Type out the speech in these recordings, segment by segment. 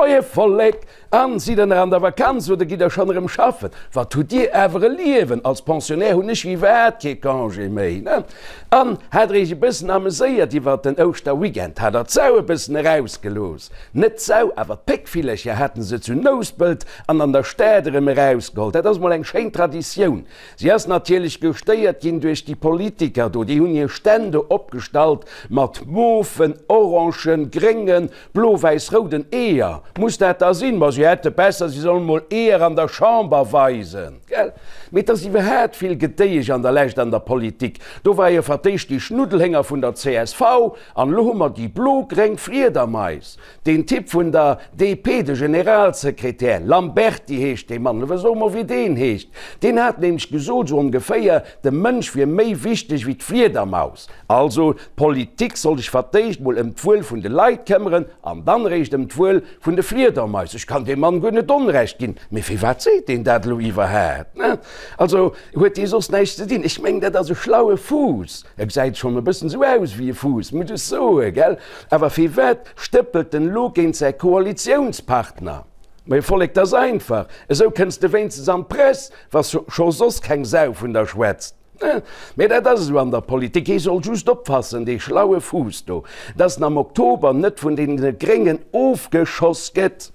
Moie Vollek! An, sidd der nach an der Vakanz oder gitt der schonn erëm schaffen? Wat hutt dir awer e Liewen! Als Pensionnaire hunn ech iwwerhaat kee Congé méi, ne? An, hat der iech e bëssen ameséiert iwwert den Ouschterweekend? Hat der d'Sau e bëssen erausgelooss? Net d'Sau, awer d'Péckvillercher haten se zu Nouspelt an an der Stad erëm erausgeholl. Dat ass mol eng schéin Traditioun. Si ass natierlech gestéiert ginn duerch déi Politiker do. Déi hunn hir Stänn do opgestallt mat mofen, orangen, gréngen, Blo-wäiss-rouden Eeër, muss dat da sinn? Ma si hätte besser, si sollen mol Eeër an der Chamber weisen, gell? Mee et ass iwwerhaat vill Gedéiesch an der Lescht an der Politik. Do war jo fir d'éischt déi Schnuddelhénger vun der csv, an elo hu mer déi blo-gréng Fliedermais. Deen Typ vun der DP, de Generalsekretär, Lamberty heescht dee Mann, elo so mol wéi deen heescht, deen hat nämlech gesot, sou ongeféier, de Mënsch wier méi wichteg wéi d'Fliedermaus. Also, d'Politik soll sech fir d'éischt mol ëm d'Wuel vun de Leit këmmeren an dann eréischt ëm d'Wuel vun de Fliedermais. Ech kann deem Mann guer net Onrecht ginn, mee firwat seet deen dat elo iwwerhaapt? Ne? Also, huet dee soss näischt ze dinn? Ech mengen, dat ass e schlaue Fuuss. E gesäit schonn e bëssen esou aus wéi e Fuuss, muss ech soen, gell? Awer firwat stëppelt en elo géint säi Koalitiounspartner? Mee Vollek, 't ass einfach, esou kënns de wéinstens an d'Press, wa scho soss keng Sau vun der schwätzt. Mee dat ass esou an der Politik, ee soll just oppassen, dee schlaue Fuuss do, dass en am Oktober net vun deene Gréngen ofgeschoss gëtt.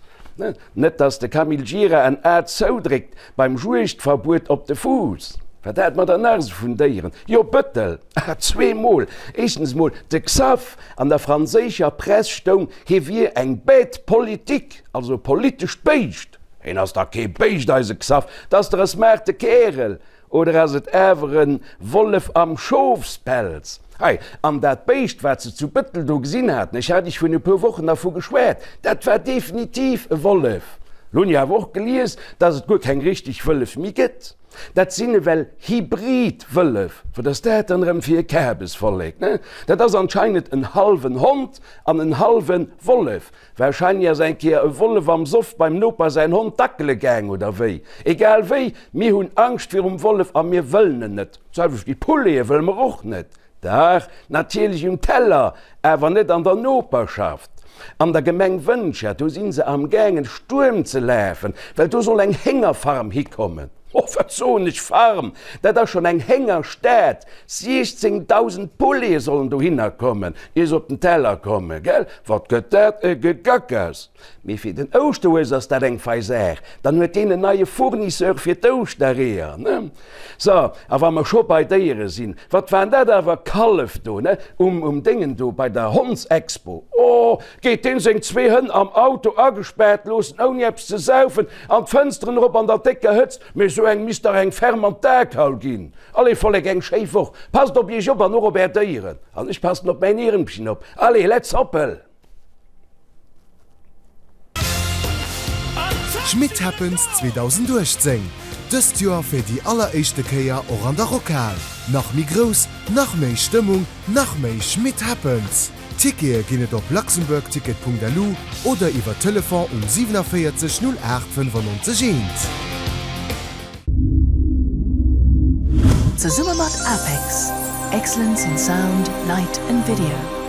Net dass de Camille Gira en A zoudréckt beim Juegdverbuet op de Fuuss. Wat hat mer dann nach esou vun Déieren? Jo, Bëttel, zweemol. Éischtens emol de Xaph, an der franséischer Press stoung, hie wier eng bête politique, also e politescht Béischt. Hien ass dach kee Béischt, eise Xaph, 't ass dach e smarte Kärel. Oder ass et awer en Wollef am Schofspelz? Hei, an dat Béischt, wat se zu Bëttel do gesinn haten, ech hat iech virun e puer Wochen dervu geschwat, dat war definitiv e Wollef. Lo hunn ech awer och gelies, dass et guer keng richteg Wëllef méi gëtt. Dat sinn ewell Hybrid-Wëllef. Wat ass dat dann erëm fir e Kabesvollek, ne? Dat ass anscheinend en hallwen Hond an en hallwe Wollef. Wahrscheinlech ass eng Kéier e Wollef am Soff beim Noper säin Hond dackele gaang, oder wéi? Egal wéi, mir hunn Angscht virum Wollef a mir wëllen en net. D'selwecht wéi Poulete wëlle mer och net. Dach, natierlech um Teller, awer net an der Noperschaft. An der Gemeng Wëntger, do si se am gaangen Stuerm ze lafen, well do soll eng Héngerfarm hikommen. Oh, wat soen ech, Farm, dat ass schonn eng Héngerstad. 16.000 Poulete sollen dohinner kommen, ier se op den Teller kommen, gell? Wat gëtt dat e Gegackers! Mee fir den Ouschterhues ass dat eng fei Saach, dann huet deen en neie Fournisseur fir d'Ouschtereeër, ne? So, a wa mer scho bei Déiere sinn, wat waren dat awer Kallef do, ne? Um, um Déngen do bei der Hondsexpo. Oh, geet deen seng zwee Hënn am Auto agespaart loossen, ouni eppes ze saufen, an d'Fënsteren erop an der décker Hëtzt, mee esou engem misst dach eng ferm an d'Akaul ginn. Allez Vollek, eng schéi Woch, passt op iech op an och op är Déieren. An ech passen op mäin Iermchen op. Allez, let's hoppel! Schmitt Happens 2018, dëst Joer fir déi alleréischte Kéier och an der Rockhal. Nach méi grouss, nach méi Stëmmung, nach méi Schmitt Happens! Tickete ginn et op luxembourgticket.lu oder iwwer Telefon um 47 08 95 1. Zesumme mat APEX, Excellence in Sound, Light and Video.